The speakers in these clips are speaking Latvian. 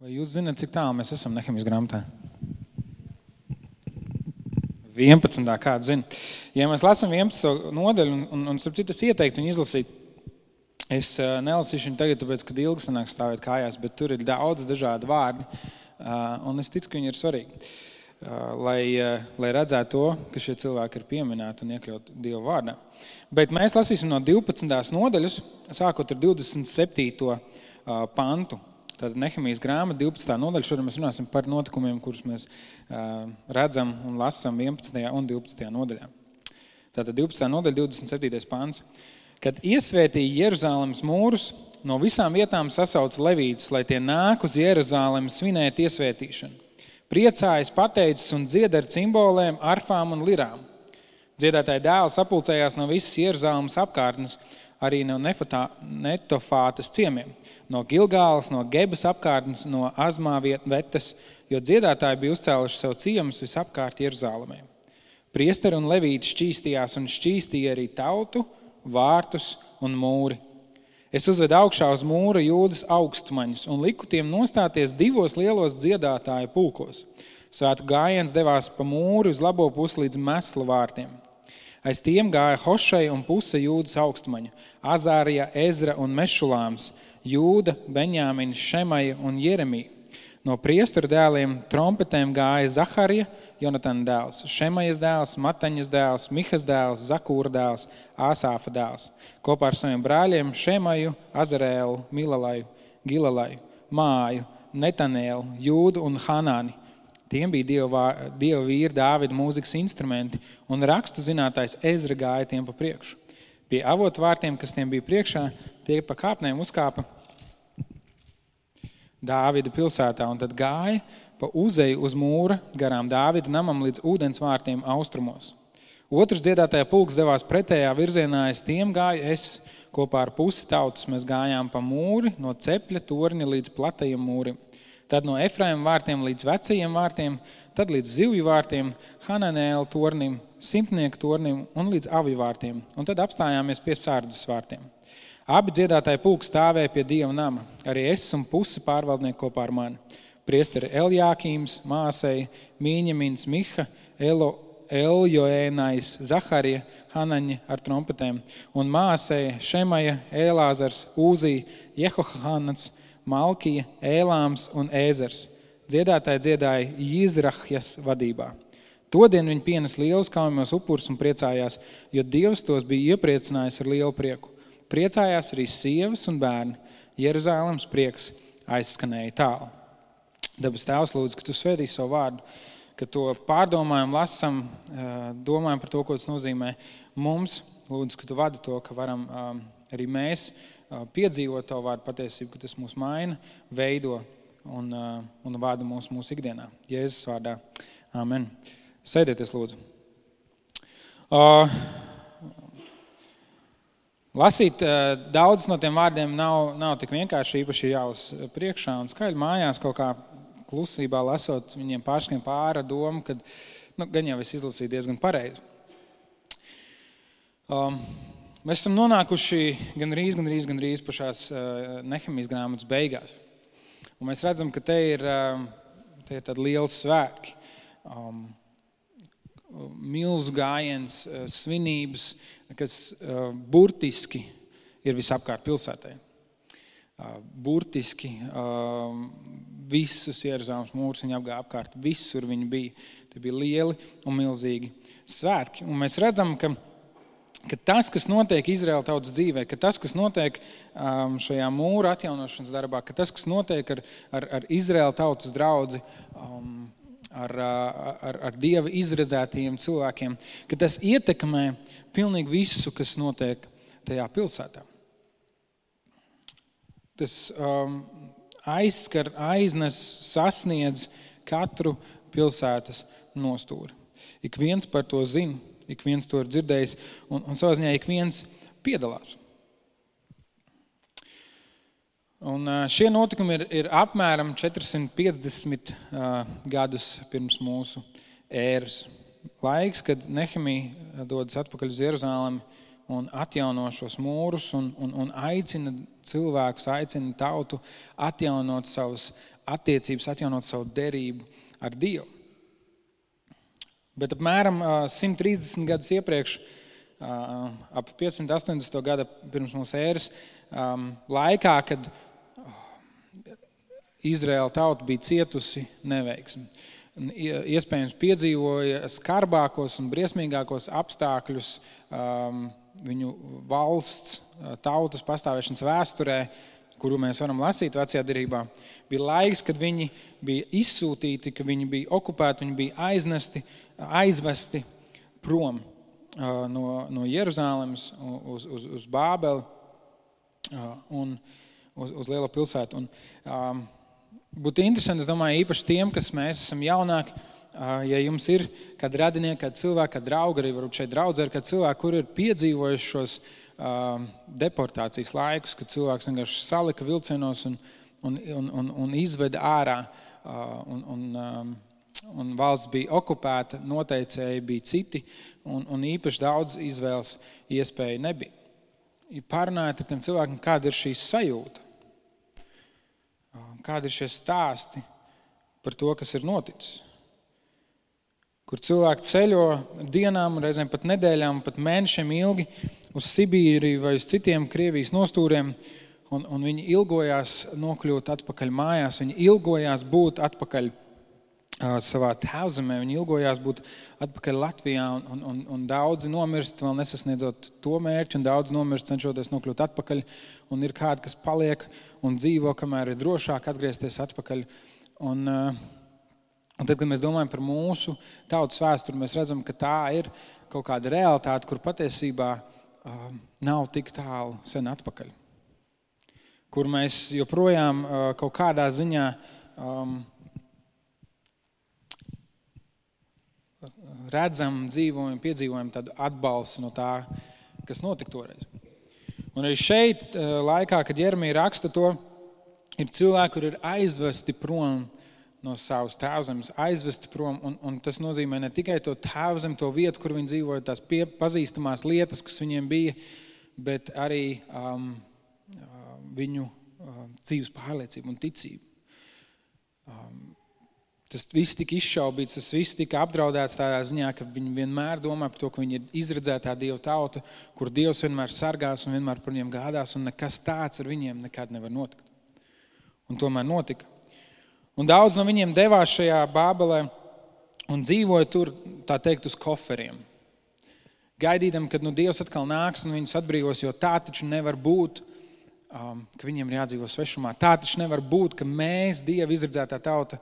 Vai jūs zināt, cik tālu mēs esam Nehemijas grāmatā? 11. kāds zina. Ja mēs lasām 11. nodaļu, un starp citu es ieteiktu viņu izlasīt, es nelasīšu viņu tagad, tāpēc, kad ilgi sanāk stāvēt kājās, bet tur ir daudz dažādi vārdi, un es ticu, ka viņi ir svarīgi, lai redzētu to, ka šie cilvēki ir pieminēti un iekļaut Dieva vārdā. Bet mēs lasīsim no 12. nodaļas, sākot ar 27. pantu. Tātad Nehemijas grāmata, 12. nodaļa, šodien mēs runāsim par notikumiem, kurus mēs redzam un lasam 11. un 12. nodaļā. Tātad 12. nodaļa, 27. pants. Kad iesvētīja Jeruzālemes mūrus, no visām vietām sasauca levītus, lai tie nāk uz Jeruzālemi svinēt iesvētīšanu. Priecājas, pateicis un dzied ar cimbolēm, arfām un lirām. Dziedātāji dēli sapulcējās no visas Jeruzālemes apkārtnes, arī no Netofātas ciemiem, no Gilgālas, no Gebas apkārtnes, no Azmāvietas, jo dziedātāji bija uzcēluši savu ciemus visapkārt Jeruzālemē. Priesteri un levīti šķīstījās un šķīstīja arī tautu, vārtus un mūri. Es uzvedu augšā uz mūra Jūdas augstmaņus un liku tiem nostāties 2 lielos dziedātāju pulkos. Svētku gājiens devās pa mūri uz labo pusi līdz Meslu vārtiem. Aiz tiem gāja Hošai un puse Jūdas augstmaņu, Azārija, Ezra un Mešulāms, Jūda, Benjāmins, Šemaja un Jeremija. No priesteru dēliem trompetēm gāja Zaharija, Jonatana dēls, Šemajas dēls, Mataņas dēls, Mihas dēls, Zakūra dēls, Āsāfa dēls. Kopā ar saviem brāļiem Šemaju, Azarēlu, Milalaju, Gilalaju, Māju, Netanēlu, Jūdu un Hanāni. Tiem bija Dieva vīra Dāvida mūzikas instrumenti, un rakstu zinātājs Ezra gāja tiem pa priekšu. Pie avotu vārtiem, kas tiem bija priekšā, tie pa kāpnēm uzkāpa Dāvida pilsētā, un tad gāja pa uzeju uz mūra garām Dāvida namam līdz ūdens vārtiem austrumos. Otrs dziedātāja pulks devās pretējā virzienā, aiz tiem gāju es, kopā ar pusi tautas mēs gājām pa mūri, no cepļa torņa līdz platajam mūrim. Tad no Efraima vārtiem līdz vecajiem vārtiem, tad līdz zivju vārtiem, Hananēla tornim, Simtnieku tornim un līdz avju vārtiem. Un tad apstājāmies pie Sārdas vārtiem. Abi dziedātāji pulki stāvēja pie Dieva nama, arī es un pusi pārvaldnieki kopā ar mani. Priesteri Eljākīms, Māsei, Mīņemins, Miha, Eljoēnais, Zaharija, Hanaņa ar trompetēm, un Māsei, Šemaja, Ēlāzars, Uzī, Jehohanats, Malkija, Ēlāms un Ēzers. Dziedātāji dziedāja Jizrahjas vadībā. Todien viņi pienes lielus kaujamos upurus un priecājās, jo Dievs tos bija iepriecinājis ar lielu prieku. Priecājās arī sievas un bērni. Jeruzālemes prieks aizskanēja tālu. Dabas Tēvs, lūdzu, ka tu svētīsi savu vārdu, ka to pārdomājam, lasam, domājam par to, ko tas nozīmē mums. Lūdzu, ka tu vadi to, ka varam arī mēs piedzīvot tavu vārdu patiesību, ka tas mūs maina, veido un vada mūsu ikdienā. Jēzus vārdā. Amen. Sēdieties, lūdzu. Lasīt daudz no tiem vārdiem nav tik vienkārši, īpaši jāuz priekšā un skaļi mājās kaut kā klusībā lasot, viņiem pārskrien pāra domu, kad gan jau es izlasīju diezgan pareizi. Mēs esam nonākuši gandrīz pašās Nehemijas grāmatas beigās. Un mēs redzam, ka te ir tādi lieli svētki, milzu gājiens, svinības, kas burtiski ir visapkārt pilsētai. Burtiski visus Jeruzālemes mūrus viņi apgāja apkārt, visur viņi bija. Tie bija lieli un milzīgi svētki. Un mēs redzam, ka tas, kas notiek Izraēla tautas dzīvē, ka tas, kas notiek šajā mūra atjaunošanas darbā, ka tas, kas notiek ar Izraēla tautas draudzi, ar Dieva izredzētajiem cilvēkiem, ka tas ietekmē pilnīgi visu, kas notiek tajā pilsētā. Tas aizskar, aiznes, sasniedz katru pilsētas nostūri. Ik viens par to zina. Ik viens to ir dzirdējis, un savā ziņā ik viens piedalās. Un šie notikumi ir apmēram 450 gadus pirms mūsu ēras. Laiks, kad Nehemija dodas atpakaļ uz Jeruzālemi un atjauno šos mūrus un aicina cilvēkus, aicina tautu atjaunot savus attiecības, atjaunot savu derību ar Dievu. Bet apmēram 130 gadus iepriekš, ap 580. gada pirms mūsu ēras laikā, kad Izraēla tauta bija cietusi neveiksmi. Iespējams piedzīvoja skarbākos un briesmīgākos apstākļus viņu valsts, tautas pastāvēšanas vēsturē, kuru mēs varam lasīt Vecajā derībā. Bija laiks, kad viņi bija izsūtīti, ka viņi bija okupēti, viņi bija aizvesti prom no Jeruzālemes uz Bābeli un uz lielo pilsētu. Un, būtu interesanti, es domāju, īpaši tiem, kas mēs esam jaunāki, ja jums ir kādi radinieki, kādi cilvēki, kādi draugi, arī varbūt šeit draudzē, kādi cilvēki, kuri ir piedzīvojuši šos deportācijas laikus, kad cilvēks vienkārši salika vilcienos un izveda ārā, un valsts bija okupēta, noteicēji bija citi, un īpaši daudz izvēles iespēja nebija. Pārunājiet ar tiem cilvēkiem, kāda ir šī sajūta, kādi ir šie stāsti par to, kas ir noticis. Kur cilvēki ceļo dienām, reizēm pat nedēļām, pat mēnešiem ilgi uz Sibīriju vai uz citiem Krievijas nostūriem, un viņi ilgojās nokļūt atpakaļ mājās, viņi ilgojās būt atpakaļ savā tēvzemē, viņi ilgojās būt atpakaļ Latvijā, un daudzi nomirst, vēl nesasniedzot to mērķi, un daudzi nomirst, cenšoties nokļūt atpakaļ, un ir kādi, kas paliek un dzīvo, kamēr ir drošāk atgriezties atpakaļ. Un tad, kad mēs domājam par mūsu tautas vēsturi, mēs redzam, ka tā ir kaut kāda realitāte, kur patiesībā nav tik tālu sen atpakaļ. Kur mēs joprojām kaut kādā ziņā redzam, dzīvojam, piedzīvojam tādu atbalstu no tā, kas notika toreiz. Un arī šeit laikā, kad Jeremija raksta to, ir cilvēki, kur ir aizvesti prom no savas tēvzemes, aizvesti prom, un tas nozīmē ne tikai to tēvzemi, to vietu, kur viņi dzīvoja, tās pazīstamās lietas, kas viņiem bija, bet arī viņu dzīves pārliecību un ticību. Tas viss tika izšaubīts, tas viss tika apdraudēts tādā ziņā, ka viņi vienmēr domā par to, ka viņi ir izredzētā Dieva tauta, kur Dievs vienmēr sargās un vienmēr par viņiem gādās, un nekas tāds ar viņiem nekad nevar notikt. Un tomēr notika. Un daudz no viņiem devās šajā Bābelē un dzīvoja tur, tā teikt, uz koferiem. Gaidīdam, kad Dievs atkal nāks un viņus atbrīvos, jo tā taču nevar būt, ka viņiem ir jādzīvo svešumā. Tā taču nevar būt, ka mēs, Dieva izredzētā tauta,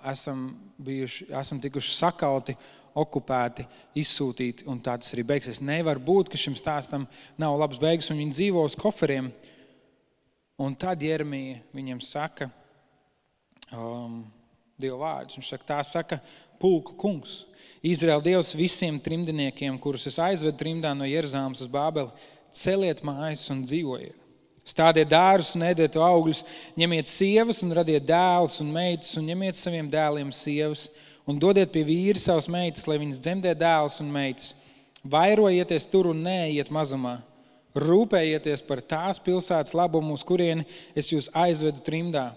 esam tikuši sakauti, okupēti, izsūtīti, un tā tas arī beigsies. Nevar būt, ka šim stāstam nav labs beigas, un viņi dzīvo uz koferiem. Un tad Jeremija viņiem saka Dieva vārdus. Viņš saka, tā saka pulku kungs. Izraēla Dievs visiem trimdiniekiem, kurus es aizvedu trimdā no Jeruzālemes uz Bābeli, celiet mājas un dzīvojiet. Stādiet dārzus un ēdiet augļus, ņemiet sievas un radiet dēlus un meitas, un ņemiet saviem dēliem sievas, un dodiet pie vīri savas meitas, lai viņas dzemdē dēlus un meitas. Vairojieties tur un neejiet mazumā. Rūpējieties par tās pilsētas labumu, uz kurieni es jūs aizvedu trimdā.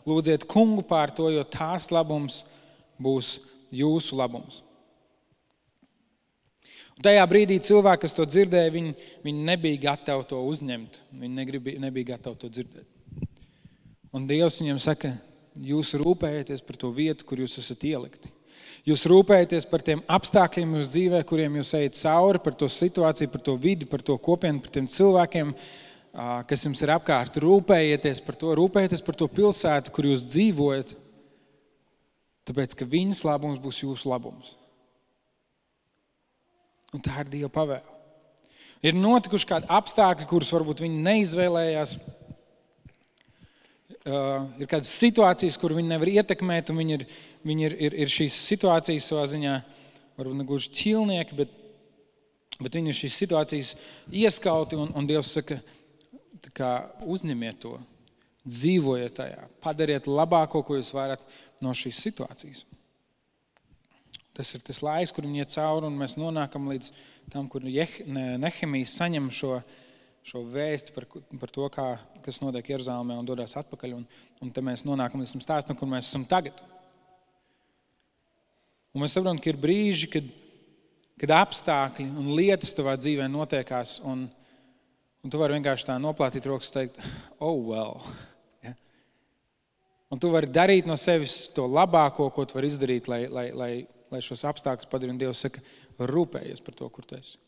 Lūdziet kungu pār to, jo tās labums būs jūsu labums. Un tajā brīdī cilvēki, kas to dzirdēja, viņi nebija gatavi to uzņemt. Viņi nebija gatavi to dzirdēt. Un Dievs viņiem saka, jūs rūpējieties par to vietu, kur jūs esat ielikti. Jūs rūpējaties par tiem apstākļiem jūsu dzīvē, kuriem jūs ejat cauri, par to situāciju, par to vidi, par to kopienu, par tiem cilvēkiem, kas jums ir apkārt. Rūpējieties par to pilsētu, kur jūs dzīvojat, tāpēc, ka viņas labums būs jūsu labums. Un tā ir Dieva pavēle. Ir notikuši kādi apstākļi, kurus varbūt viņi neizvēlējās. Ir kādas situācijas, kur viņi nevar ietekmēt, un viņi ir šīs situācijas savā ziņā, varbūt ne gluži ķilnieki, bet viņi ir šīs situācijas ieskauti, un Dievs saka, tā kā uzņemiet to, dzīvojiet tajā, padariet labāko, ko jūs varat no šīs situācijas. Tas ir tas laiks, kur viņi iet cauri, un mēs nonākam līdz tam, kur Nehemijs saņem šo šo vēsti par to, kas notiek Jeruzalemē un dodās atpakaļ. Un te mēs nonākam līdz tam stāstam, kur mēs esam tagad. Un mēs saprotam, ka ir brīži, kad apstākļi un lietas tavā dzīvē notiekās, un tu vari vienkārši tā noplātīt rokas un teikt, oh well. Ja? Un tu vari darīt no sevis to labāko, ko tu vari izdarīt, lai šos apstākļus padarītu. Un Dievs saka, rūpējies par to, kur tu esi.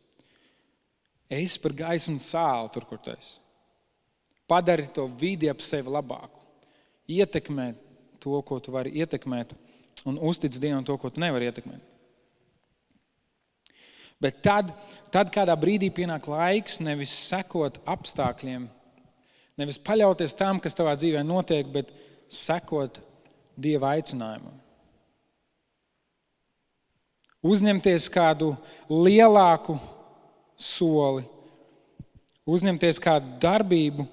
Eis par gaisu un sāli tur, kur tu esi. Padari to vidi ap sevi labāku. Ietekmē to, ko tu vari ietekmēt, un uztic Dievam to, ko tu nevari ietekmēt. Bet tad kādā brīdī pienāk laiks nevis sekot apstākļiem, nevis paļauties tam, kas tavā dzīvē notiek, bet sekot Dieva aicinājumam. Uzņemties kādu lielāku soli, uzņemties kādu darbību,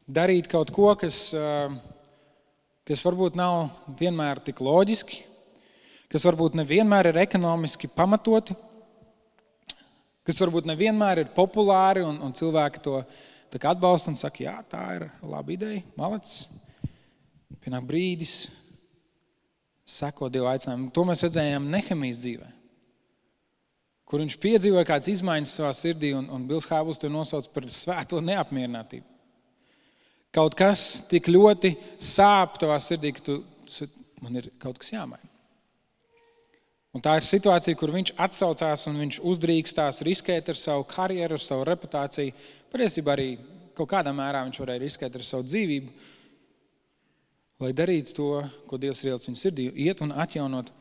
darīt kaut ko, kas varbūt nav vienmēr tik loģiski, kas varbūt nevienmēr ir ekonomiski pamatoti, kas varbūt nevienmēr ir populāri un cilvēki to atbalsta un saka, jā, tā ir laba ideja, malacis. Pienāk brīdis, seko Dieva aicinājumu. To mēs redzējām Nehemijas dzīvē, kur viņš piedzīvoja kādas izmaiņas savā sirdī, un Bils Hābls to nosauc par svēto neapmierinātību. Kaut kas tik ļoti sāp tavā sirdī, ka man ir kaut kas jāmaina. Un tā ir situācija, kur viņš atsaucās un viņš uzdrīkstās riskēt ar savu karjeru, ar savu reputāciju. Patiesībā arī kaut kādā mērā viņš varēja riskēt ar savu dzīvību, lai darītu to, ko Dievs ir ielicis viņa sirdī, iet un atjaunot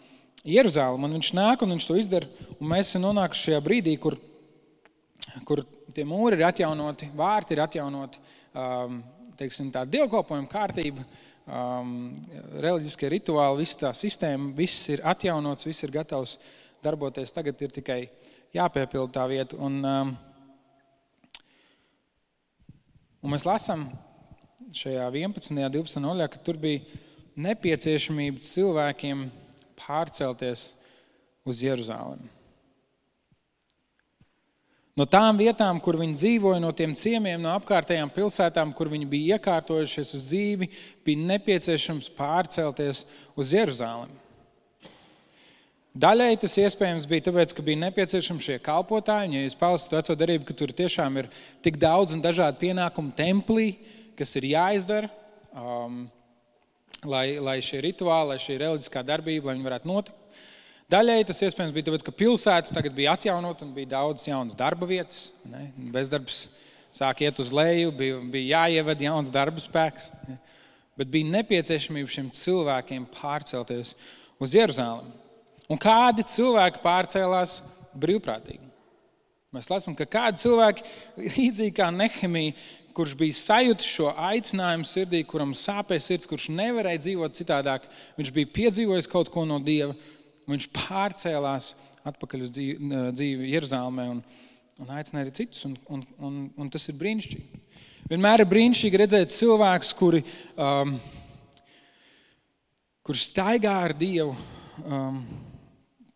Jeruzalemi. Un viņš nāk un viņš to izdara, un mēs esam nonākuši šajā brīdī, kur tie mūri ir atjaunoti, vārti ir atjaunoti, teiksim, tā dievkalpojuma kārtība, reliģiskie rituāli, visa tā sistēma, viss ir atjaunots, viss ir gatavs darboties. Tagad ir tikai jāpiepilda tā vieta. Un mēs lasām šajā 11. 12. noļā, ka tur bija nepieciešamība cilvēkiem pārcelties uz Jeruzalemi. No tām vietām, kur viņi dzīvoja, no tiem ciemiem, no apkārtējām pilsētām, kur viņi bija iekārtojušies uz dzīvi, bija nepieciešams pārcelties uz Jeruzalemi. Daļai tas iespējams bija tāpēc, ka bija nepieciešami šie kalpotāji, ja jūs palasat veco darību, ka tur tiešām ir tik daudz un dažādi pienākumi templī, kas ir jāizdara, lai šie rituāli, lai šī reliģiskā darbība, lai viņi varētu notikt. Daļai tas iespējams bija tāpēc, ka pilsēta tagad bija atjaunot un bija daudz jaunas darba vietas. Ne? Bezdarbs sāk iet uz leju, bija jāieved jauns darba spēks. Ne? Bet bija nepieciešamība šiem cilvēkiem pārcelties uz Jeruzalemi. Un kādi cilvēki pārcēlās brīvprātīgi? Mēs lasām, ka kādi cilvēki, līdzīgi kā Nehemija, kurš bija sajutis šo aicinājumu sirdī, kuram sāpēja sirds, kurš nevarēja dzīvot citādāk, viņš bija piedzīvojis kaut ko no Dieva, viņš pārcēlās atpakaļ uz dzīvi Jeruzalemē un aicināja arī citus, un tas ir brīnišķīgi. Vienmēr ir brīnišķīgi redzēt cilvēkus, kuri staigā ar Dievu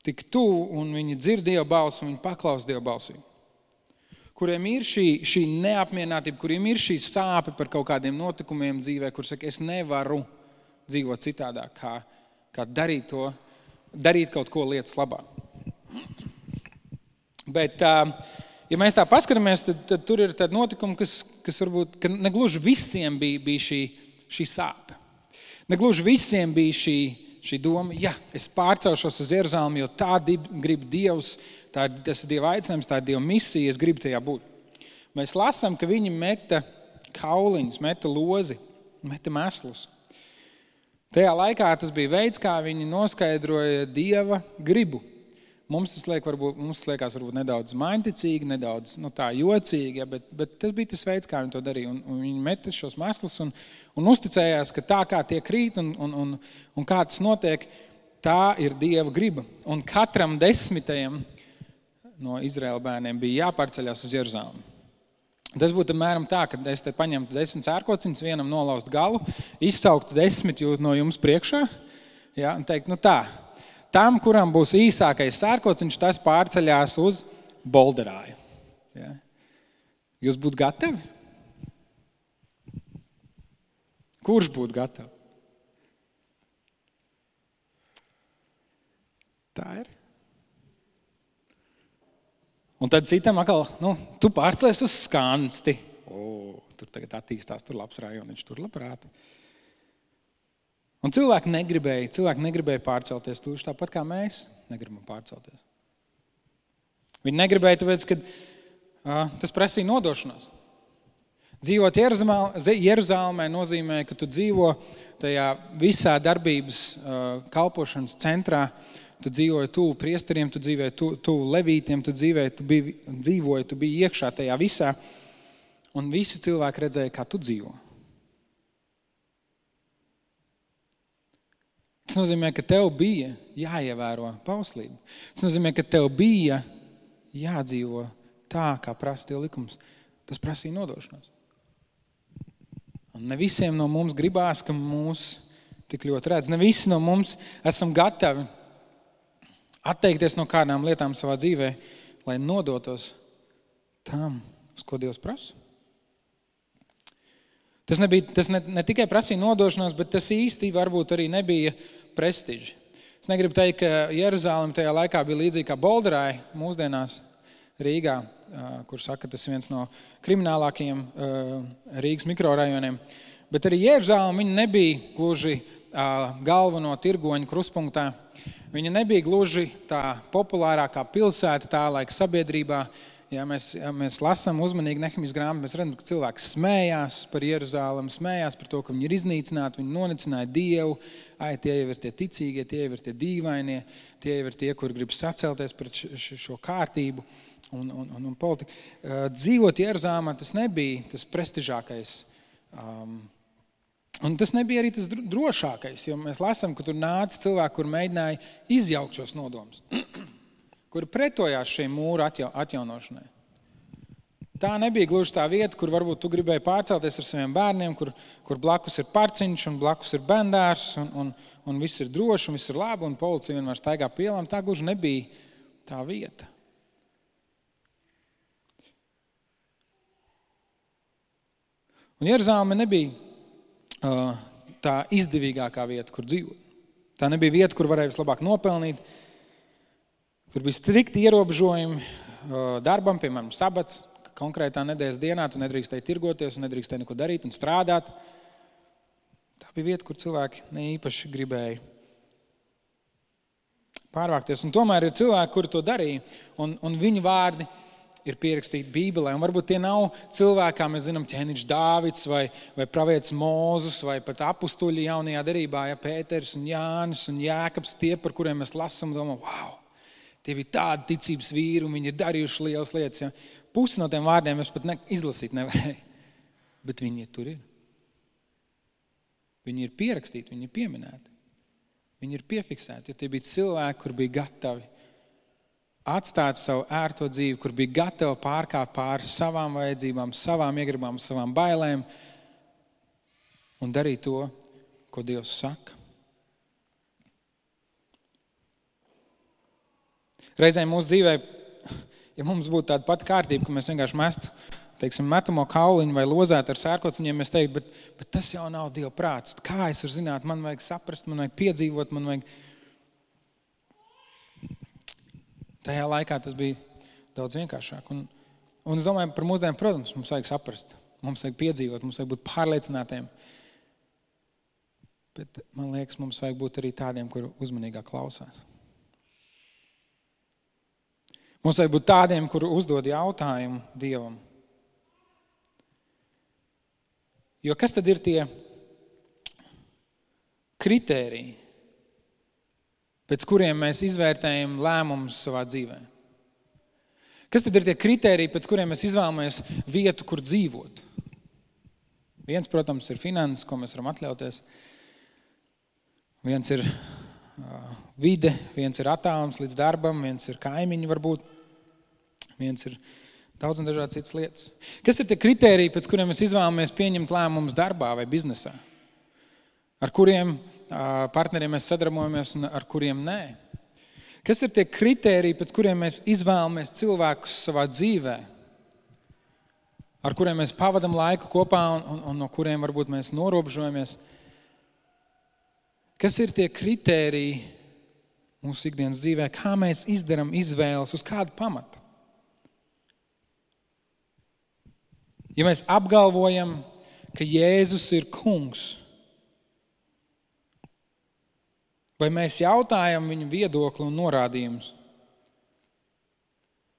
tik tuvu, un viņi dzird Dieva balsi, un viņi paklaus Dieva balsī. Kuriem ir šī neapmierinātība, kuriem ir šī sāpe par kaut kādiem notikumiem dzīvē, kur saka, es nevaru dzīvot citādāk, kā darīt kaut ko lietas labā. Bet, ja mēs tā paskatāmies, tad tur ir tādi notikumi, kas varbūt ka negluži visiem bija šī sāpe. Negluži visiem bija šī doma, es pārcelšos uz Jeruzalemi, jo tā grib Dievs, tas ir Dieva aicinājums, tā ir Dieva misija, es gribu tajā būt. Mēs lasām, ka viņi meta kauliņus, meta lozi, meta meslus. Tajā laikā tas bija veids, kā viņi noskaidroja Dieva gribu. Mums tas liekas varbūt nedaudz mainticīgi, nedaudz tā jocīgi, bet tas bija tas veids, kā viņi to darīja. Un viņi meta šos meslus un uzticējās, ka tā kā tie krīt un kā tas notiek, tā ir Dieva griba. Un katram 10. no Izraēla bērniem bija jāpārceļās uz Jeruzalemi. Tas būtu apmēram tā, ka es te paņemtu 10 cērkociņus, vienam nolaust galu, izsauktu 10 no jums priekšā, un teikt, tam, kuram būs īsākais cērkociņš, tas pārceļās uz Bolderāju. Ja? Jūs būtu gatavi? Kurš būtu gatavi? Tā ir. Un tad citam atkal, tu pārcēlies uz Skansti. Tur tagad attīstās, tur labs rajoniņš, tur labprāt. Un cilvēki negribēja pārcelties tūši tāpat kā mēs negribam pārcelties. Viņi negribēja, tāpēc, ka tas prasīja nodošanos. Dzīvot Jeruzalemē nozīmē, ka tu dzīvo tajā visā darbības kalpošanas centrā, tu dzīvoji tuvu priesteriem, tu dzīvoji tuvu levītiem, tu biji iekšā tajā visā, un visi cilvēki redzēja, kā tu dzīvo. Tas nozīmē, ka tev bija jāievēro bauslība. Tas nozīmē, ka tev bija jādzīvo tā, kā prasa Dieva likums. Tas prasīja nodošanos. Un ne visiem no mums gribās, ka mūs tik ļoti redz. Ne visi no mums esam gatavi atteikties no kādām lietām savā dzīvē, lai nodotos tam, uz ko Dievs prasa. Tas ne tikai prasīja nodošanos, bet tas īsti varbūt arī nebija prestiži. Es negribu teikt, ka Jeruzalem tajā laikā bija līdzīgi kā Bolderai mūsdienās Rīgā, kur saka, tas ir viens no kriminālākajiem Rīgas mikrorajoniem. Bet arī Jeruzalem viņa nebija gluži galveno tirgoņu kruspunktā. Viņa nebija gluži tā populārākā pilsēta tā laika sabiedrībā. Ja mēs lasām uzmanīgi Nehemijas grāmatu, mēs redzam, ka cilvēki smējās par Jeruzalem, smējās par to, ka viņi ir iznīcināti, viņi nonicināja Dievu. Tie jau ir tie ticīgie, tie jau ir tie dīvainie, tie jau ir tie, kuri grib sacelties pret šo kārtību un politiku. Dzīvot Jeruzalemā tas nebija tas prestižākais. Un tas nebija arī tas drošākais, jo mēs lasām, ka tur nāca cilvēki, kur mēģināja izjaukt šos nodomus, kuri pretojās šiem mūru atjaunošanai. Tā nebija gluži tā vieta, kur varbūt tu gribēji pārcelties ar saviem bērniem, kur blakus ir parciņš un blakus ir bendārs un viss ir droši un viss ir labi un policija vienmēr staigā pa ielām. Tā gluži nebija tā vieta. Un Jeruzaleme nebija tā izdevīgākā vieta, kur dzīvot. Tā nebija vieta, kur varēja vislabāk nopelnīt. Tur bija strikti ierobežojumi darbam, piemēram, sabats. Konkrētā nedēļas dienā tu nedrīkstēji tirgoties un nedrīkstēji neko darīt un strādāt. Tā bija vieta, kur cilvēki neīpaši gribēja pārvākties. Un tomēr ir cilvēki, kuri to darīja, un viņu vārdi ir pierakstīti Bībelē. Un varbūt tie nav cilvēki, kā mēs zinām, ķēniņš Dāvids vai pravietis Mūzus vai pat apustuļi jaunajā derībā, Pēters un Jānis un Jēkabs, tie, par kuriem mēs lasām un domājam, wow, tie bija tādi ticības vīri un viņi ir darījuši lielas lietas. Ja? Pusi no tiem vārdiem es pat izlasīt nevarēju, bet viņi tur ir. Viņi ir pierakstīti, viņi ir pieminēti. Viņi ir piefiksēti, jo tie bija cilvēki, kur bija gatavi atstāt savu ērto dzīvi, kur bija gatavi pārkāpt pāri savām vajadzībām, savām iegribām, savām bailēm un darīt to, ko Dievs saka. Reizēm mūsu dzīvē, ja mums būtu tāda pati kārtība, ka mēs vienkārši mestu, metamo kauliņu vai lozētu ar sērkociņiem, mēs teiktu, bet tas jau nav Dieva prāts. Kā es varu zināt, man vajag saprast, man vajag piedzīvot, man vajag... Tajā laikā tas bija daudz vienkāršāk. Un es domāju, par mūsdienām, protams, mums vajag saprast, mums vajag piedzīvot, mums vajag būt pārliecinātiem. Bet man liekas, mums vajag būt arī tādiem, kuri uzmanīgāk klausās. Mums vajag būt tādiem, kuri uzdod jautājumu Dievam. Jo kas tad ir tie kritēriji, pēc kuriem mēs izvērtējam lēmumus savā dzīvē? Kas tad ir tie kritēriji, pēc kuriem mēs izvēlamies vietu, kur dzīvot? Viens, protams, ir finanses, ko mēs varam atļauties. Viens ir vide, viens ir attālums līdz darbam, viens ir kaimiņi varbūt, viens ir daudz un dažādi citas lietas. Kas ir tie kritēriji, pēc kuriem mēs izvēlamies pieņemt lēmumus darbā vai biznesā? Ar kuriem partneriem mēs sadarbojamies un ar kuriem nē? Kas ir tie kritēriji, pēc kuriem mēs izvēlamies cilvēkus savā dzīvē? ar kuriem mēs pavadam laiku kopā un no kuriem varbūt mēs norobežojamies. Kas ir tie kritēriji mūsu ikdienas dzīvē, kā mēs izdaram izvēles, uz kādu pamatu? Ja mēs apgalvojam, ka Jēzus ir kungs, vai mēs jautājam viņu viedokli un norādījumus?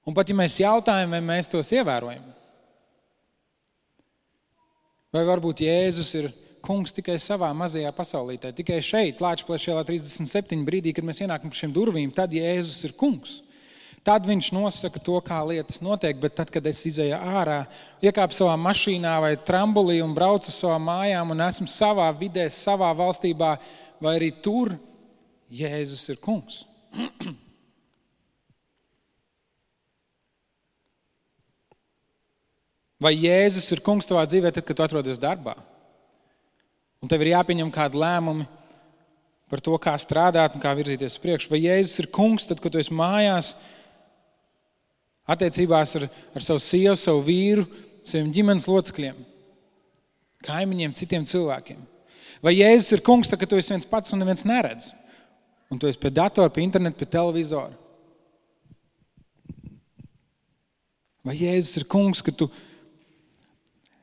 Un pat ja mēs jautājam, vai mēs tos ievērojam? Vai varbūt Jēzus ir kungs tikai savā mazajā pasaulītē, tikai šeit, Lāčplēša ielā 37 brīdī, kad mēs ienākam pa šiem durvīm, tad Jēzus ir kungs. Tad viņš nosaka to, kā lietas notiek, bet tad, kad es izēju ārā, iekāpu savā mašīnā vai trambulī un braucu uz savām mājām un esmu savā vidē, savā valstībā, vai arī tur Jēzus ir kungs. Vai Jēzus ir kungs tavā dzīvē tad, kad tu atrodies darbā? Un tev ir jāpieņem kādi lēmumi par to, kā strādāt un kā virzīties priekš. Vai Jēzus ir kungs tad, kad tu esi mājās, attiecībās ar savu sievu, savu vīru, saviem ģimenes locekļiem, kaimiņiem, citiem cilvēkiem? Vai Jēzus ir kungs tad, kad tu esi viens pats un neviens neredz? Un tu esi pie datora, pie interneta, pie televizora? Vai Jēzus ir kungs, ka tu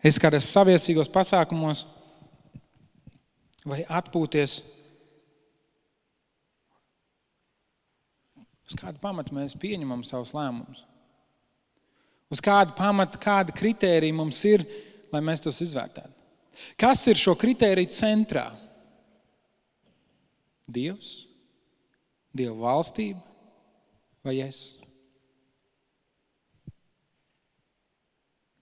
esi kādos saviesīgos pasākumos vai atpūties? Uz kādu pamatu mēs pieņemam savus lēmumus? Uz kādu pamatu, kādi kritēriji mums ir, lai mēs tos izvērtētu? Kas ir šo kritēriju centrā? Dievs? Dieva valstība? Vai es?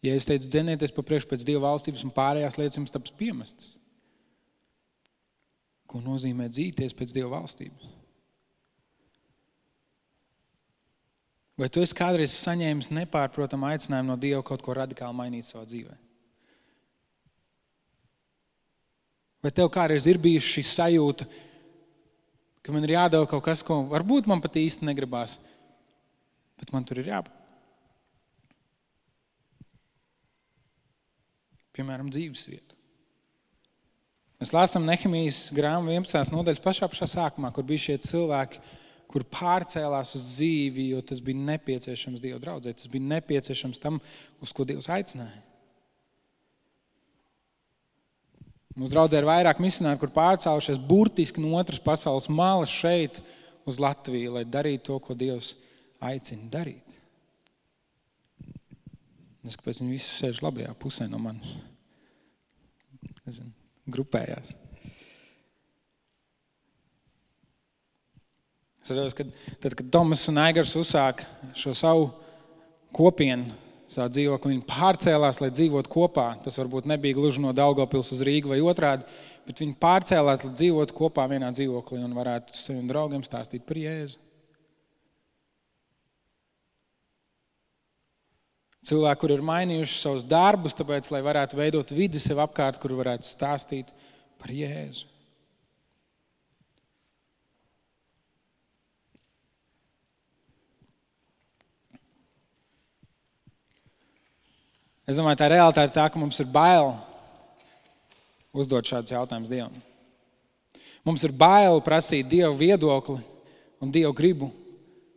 Ja es teicu, dzenieties pa priekšu pēc Dieva valstības un pārējās lietas jums taps piemestas. Ko nozīmē dzīties pēc Dieva valstības? Vai tu esi kādreiz saņēmis nepārprotamu aicinājumu no Dieva kaut ko radikāli mainīt savā dzīvē? Vai tev kādreiz ir bijusi šī sajūta, ka man ir jādara kaut kas, ko varbūt man pat īsti negribās, bet man tur ir jābūt? Piemēram, dzīvesvietu. Mēs lasām Nehemijas grāmatu 11. nodaļas pašā sākumā, kur bija šie cilvēki, kur pārcēlās uz dzīvi, jo tas bija nepieciešams Dieva draudzē, tas bija nepieciešams tam, uz ko Dievs aicināja. Mūsu draudzē ir vairāk misionāri, kur pārcēlušies burtiski no otras pasaules malas šeit uz Latviju, lai darītu to, ko Dievs aicina darīt. Es kāpēc viņi visi sēž labajā pusē no manis. Nezinu, grupējās. Es redzu, kad Tomas un Aigars uzsāka šo savu kopienu, savu dzīvokli, viņi pārcēlās, lai dzīvotu kopā. Tas varbūt nebija gluži no Daugavpils uz Rīgu vai otrādi, bet viņi pārcēlās, lai dzīvotu kopā vienā dzīvoklī un varētu saviem draugiem stāstīt par Jēzu. Cilvēki, kur ir mainījuši savus darbus, tāpēc, lai varētu veidot vidi sev apkārt, kur varētu stāstīt par Jēzu. Es domāju, tā realitāte tā, ka mums ir bail uzdot šādus jautājumus Dievam. Mums ir bail prasīt Dievu viedokli un Dievu gribu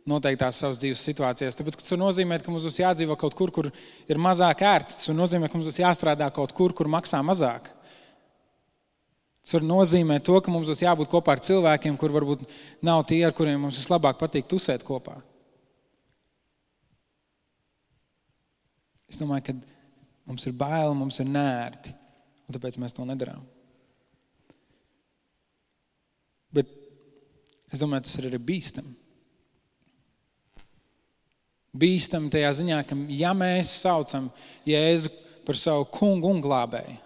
noteiktās savas dzīves situācijās. Tāpēc, ka tas nozīmē, ka mums būs jādzīvo kaut kur, kur ir mazāk ērti. Tas nozīmē, ka mums būs jāstrādā kaut kur, kur maksā mazāk. Tas nozīmē to, ka mums būs jābūt kopā ar cilvēkiem, kur varbūt nav tie, ar kuriem mums vislabāk patīk tusēt kopā. Es domāju, ka mums ir bail, mums ir neērti, un tāpēc mēs to nedarām. Bet es domāju, tas ir arī bīstami. Bīstami tajā ziņā, ka ja mēs saucam Jēzu par savu kungu un glābēju,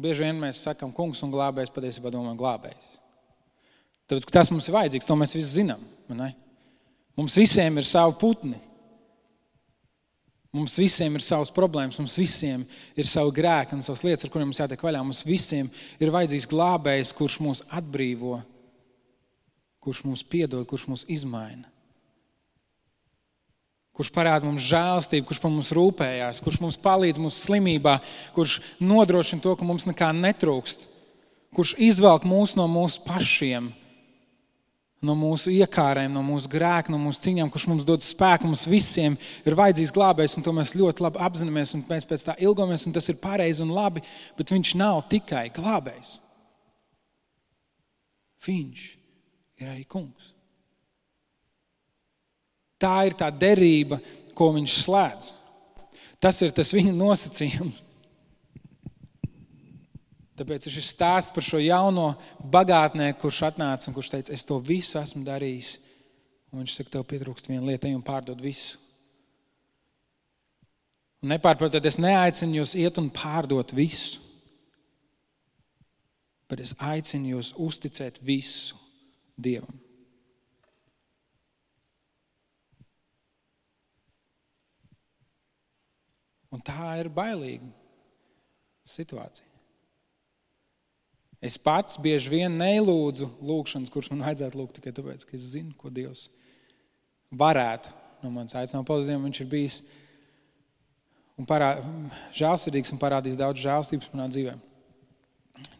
bieži vien mēs sakam kungs un glābējs, patiesībā domājam glābējs. Tāpēc, ka tas mums ir vajadzīgs, to mēs visi zinām. Ne? Mums visiem ir savi putni. Mums visiem ir savas problēmas, mums visiem ir savi grēki un savas lietas, ar kuriem mums jātiek vaļā. Mums visiem ir vajadzīgs glābējs, kurš mūs atbrīvo, kurš mums piedod, kurš mūs izmaina. kurš parāda mums žēlastību, kurš par mums rūpējās, kurš mums palīdz mūsu slimībā, kurš nodrošina to, ka mums nekā netrūkst, kurš izvelk mūs no mūsu pašiem, no mūsu iekārēm, no mūsu grēka, no mūsu ciņām, kurš mums dod spēku, mums visiem ir vajadzīgs glābējs, un to mēs ļoti labi apzināmies, un mēs pēc tā ilgojamies, un tas ir pareizi un labi, bet viņš nav tikai glābējs. Viņš ir arī kungs. Tā ir tā derība, ko viņš slēdz. Tas ir tas viņa nosacījums. Tāpēc ir šis stāsts par šo jauno bagātnieku, kurš atnāca un kurš teica, es to visu esmu darījis. Un viņš saka, tev pietrūkst viena lieta, ej un pārdod visu. Un nepārprotiet, es neaicinu jūs iet un pārdot visu. Bet es aicinu jūs uzticēt visu Dievam. Un tā ir bailīga situācija. Es pats bieži vien nelūdzu lūgšanas, kuras man vajadzētu lūgt tikai tāpēc, ka es zinu, ko Dievs varētu no manis aicināt. Paldies Dievam, viņš ir bijis un žēlsirdīgs un parādījis daudz žēlstības manā dzīvē.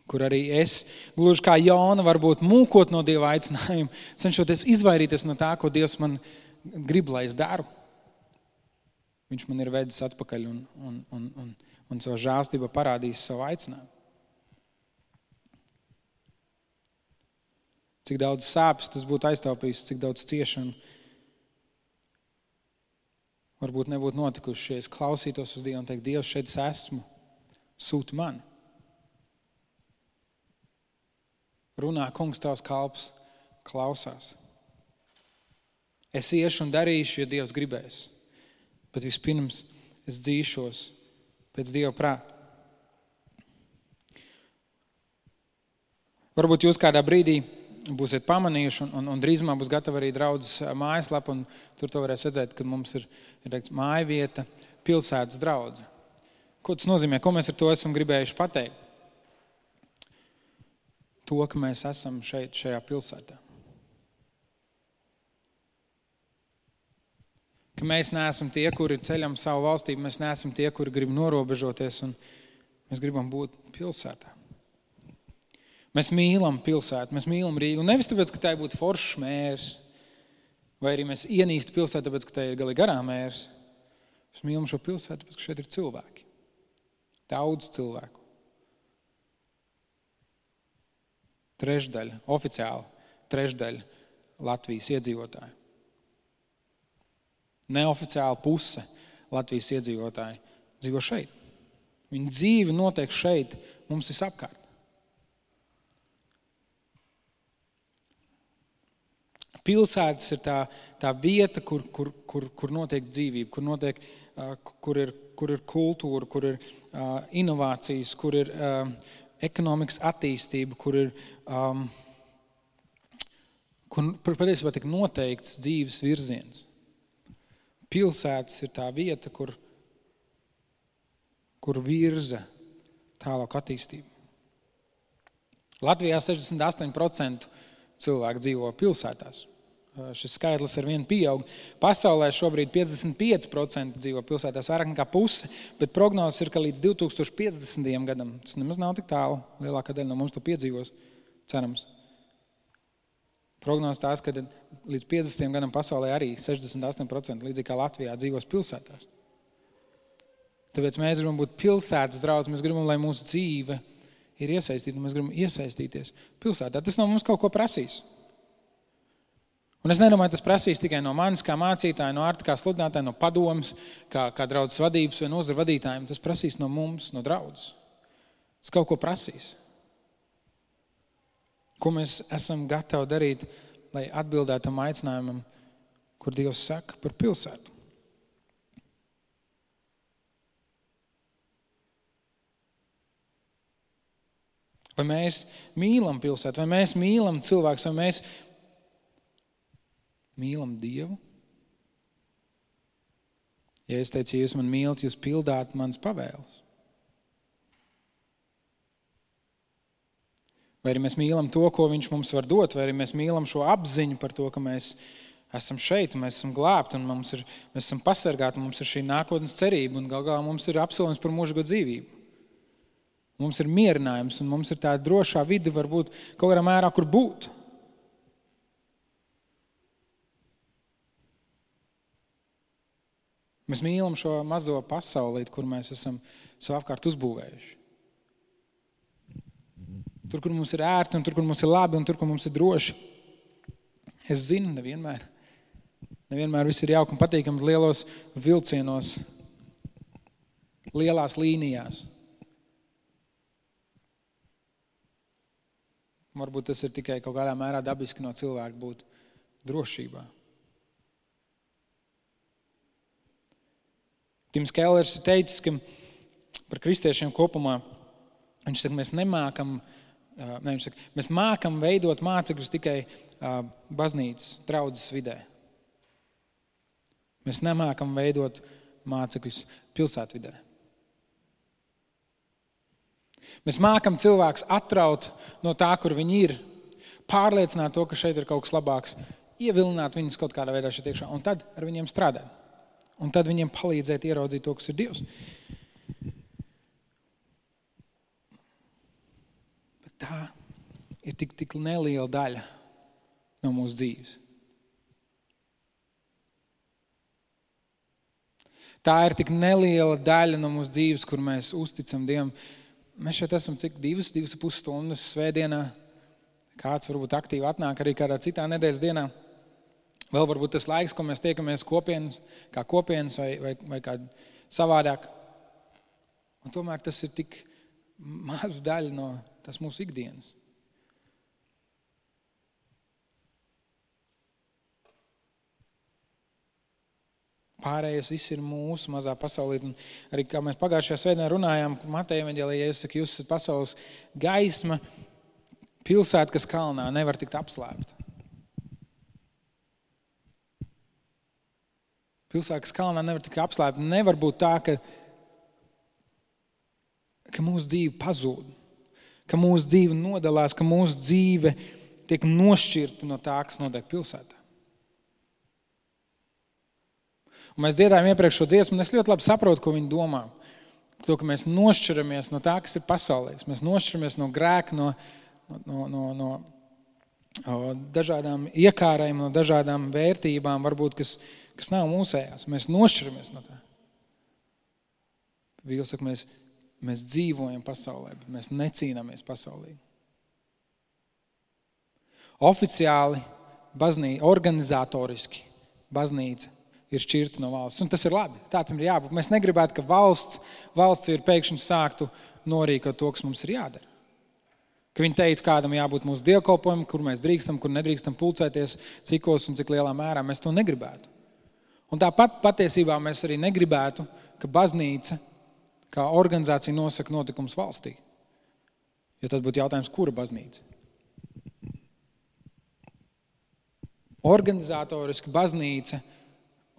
Kur arī es, gluži kā Jona, varbūt mūkot no Dieva aicinājuma, cenšoties izvairīties no tā, ko Dievs man grib, lai es daru. Viņš man ir vedis atpakaļ un savu žēlstību parādījis savu aicinājumu. Cik daudz sāpes tas būtu aiztaupījis, cik daudz ciešanu varbūt nebūtu notikuši, ja es klausītos uz Dievu un teikt, Dievs, šeit es esmu, sūti mani. Runā, kungs, tavs kalps klausās. Es iešu un darīšu, ja Dievs gribēs. Bet vispirms es dzīšos pēc Dieva prāta. Varbūt jūs kādā brīdī būsiet pamanījuši un drīzumā būs gatava arī draudzes mājaslapa, un tur to varēs redzēt, ka mums ir teikts, mājvieta, pilsētas draudze. Ko tas nozīmē? Ko mēs ar to esam gribējuši pateikt? To, ka mēs esam šeit, šajā pilsētā. Ka mēs neesam tie, kuri ceļam savu valstību, mēs neesam tie, kuri grib norobežoties, un mēs gribam būt pilsētā. Mēs mīlam pilsētu, mēs mīlam Rīgu, un nevis tāpēc, ka tā būtu foršs mērs, vai arī mēs ienīstu pilsētu, tāpēc, ka tā ir galīgi garā mērs. Mēs mīlam šo pilsētu, tāpēc, ka šeit ir cilvēki. Daudz cilvēku. Oficiāli trešdaļa Latvijas iedzīvotāji. Neoficiāli puse Latvijas iedzīvotāji dzīvo šeit. Viņa dzīve notiek šeit, mums visapkārt. Pilsētas ir tā vieta, kur notiek dzīvība, kur ir kultūra, kur ir inovācijas, kur ir ekonomikas attīstība, kur patiesībā tiek noteikts dzīves virziens. Pilsētas ir tā vieta, kur virza tālāk attīstību. Latvijā 68% cilvēku dzīvo pilsētās. Šis skaitlis ar vienu pieaug. Pasaulē šobrīd 55% dzīvo pilsētās, vairāk nekā puse, bet prognozes ir, ka līdz 2050. gadam, tas nemaz nav tik tālu, lielākā daļa no mums to piedzīvos, cerams. Prognozes tās, ka līdz 50. gadam pasaulē arī 68%, līdzīgi kā Latvijā, dzīvos pilsētās. Tāpēc mēs gribam būt pilsētas draudz, mēs gribam, lai mūsu dzīve ir iesaistīta, un mēs gribam iesaistīties pilsētā. Tas no mums kaut ko prasīs. Un es nedomāju, tas prasīs tikai no manis kā mācītāja, no Arta kā sludinātāja, no padomas, kā draudzes vadības vai nozara vadītājiem. Tas prasīs no mums, no draudzes. Tas kaut ko prasīs. Ko mēs esam gatavi darīt, lai atbildētu tam aicinājumam, kur Dievs saka par pilsētu. Vai mēs mīlam pilsētu, vai mēs mīlam cilvēkus, vai mēs mīlam Dievu? Ja es teicu, ja jūs man mīlat, jūs pildāt manas pavēles. Vai arī mēs mīlam to, ko viņš mums var dot, vai arī mēs mīlam šo apziņu par to, ka mēs Esam šeit, un mēs esam glābti, un mēs esam pasargāti, un mums ir šī nākotnes cerība, un gal galā mums ir apsolījums par mūžīgo dzīvību. Mums ir mierinājums, un mums ir tā drošā vide varbūt kaut kādā mērā, kur būt. Mēs mīlam šo mazo pasaulīti, kur mēs esam savu apkārt uzbūvējuši. Tur, kur mums ir ērti, un tur, kur mums ir labi, un tur, kur mums ir droši. Es zinu, nevienmēr viss ir jauki un patīkami lielos vilcienos, lielās līnijās. Varbūt tas ir tikai kaut kādā mērā dabiski no cilvēka būt drošībā. Tims Kellers ir teicis, ka par kristiešiem kopumā, viņš saka, mēs mākam veidot mācekļus tikai baznīcas, draudzes vidē. Mēs nemākam veidot mācekļus pilsētvidē. Mēs mākam cilvēkus atraut no tā, kur viņi ir, pārliecināt to, ka šeit ir kaut kas labāks, ievilināt viņus kaut kādā veidā šeit iekšā, un tad ar viņiem strādāt. Un tad viņiem palīdzēt ieraudzīt to, kas ir Dievs. Bet tā ir tik neliela daļa no mūsu dzīves. Tā ir tik neliela daļa no mūsu dzīves, kur mēs uzticam Dievam. Mēs šeit esam cik 2,5 stundas svētdienā. Kāds varbūt aktīvi atnāk arī kādā citā nedēļas dienā. Vēl varbūt tas laiks, ko mēs tiekamies kā kopienas vai kā savādāk. Un tomēr tas ir tik maz daļa no tas mūsu ikdienas. Pārējais viss ir mūsu mazā pasaulī. Un arī kā mēs pagājušajā svētdienā runājām, Mateja evaņģēlijā, Jēzus saka, jūs esat pasaules gaisma, pilsēta, kas kalnā nevar tikt apslēpta. Pilsēta, kas kalnā nevar tikt apslēpta. Nevar būt tā, ka mūsu dzīve pazūd, ka mūsu dzīve nodalās, ka mūsu dzīve tiek nošķirta no tā, kas notiek pilsētā. Un mēs dziedājam iepriekš šo dziesmu, un es ļoti labi saprotu, ko viņi domā. To, ka mēs nošķiramies no tā, kas ir pasaulīgs. Mēs nošķiramies no grēka, no dažādām iekārēm, no dažādām vērtībām, varbūt, kas nav mūsējās. Mēs nošķiramies no tā. Vīls saka, mēs dzīvojam pasaulē, bet mēs necīnāmies pasaulī. Oficiāli, organizatoriski baznīca ir šķirta no valsts. Un tas ir labi. Tā tam ir jābūt. Mēs negribētu, ka valsts ir pēkšņi sāktu norīkot to, kas mums ir jādara. Ka viņi teiktu, kādam jābūt mūsu dievkalpojumam, kur mēs drīkstam, kur nedrīkstam pulcēties, cikos un cik lielā mērā mēs to negribētu. Un tāpat patiesībā mēs arī negribētu, ka baznīca kā organizācija nosaka notikums valstī. Jo tad būtu jautājums, kura baznīca? Organizatoriski baznīca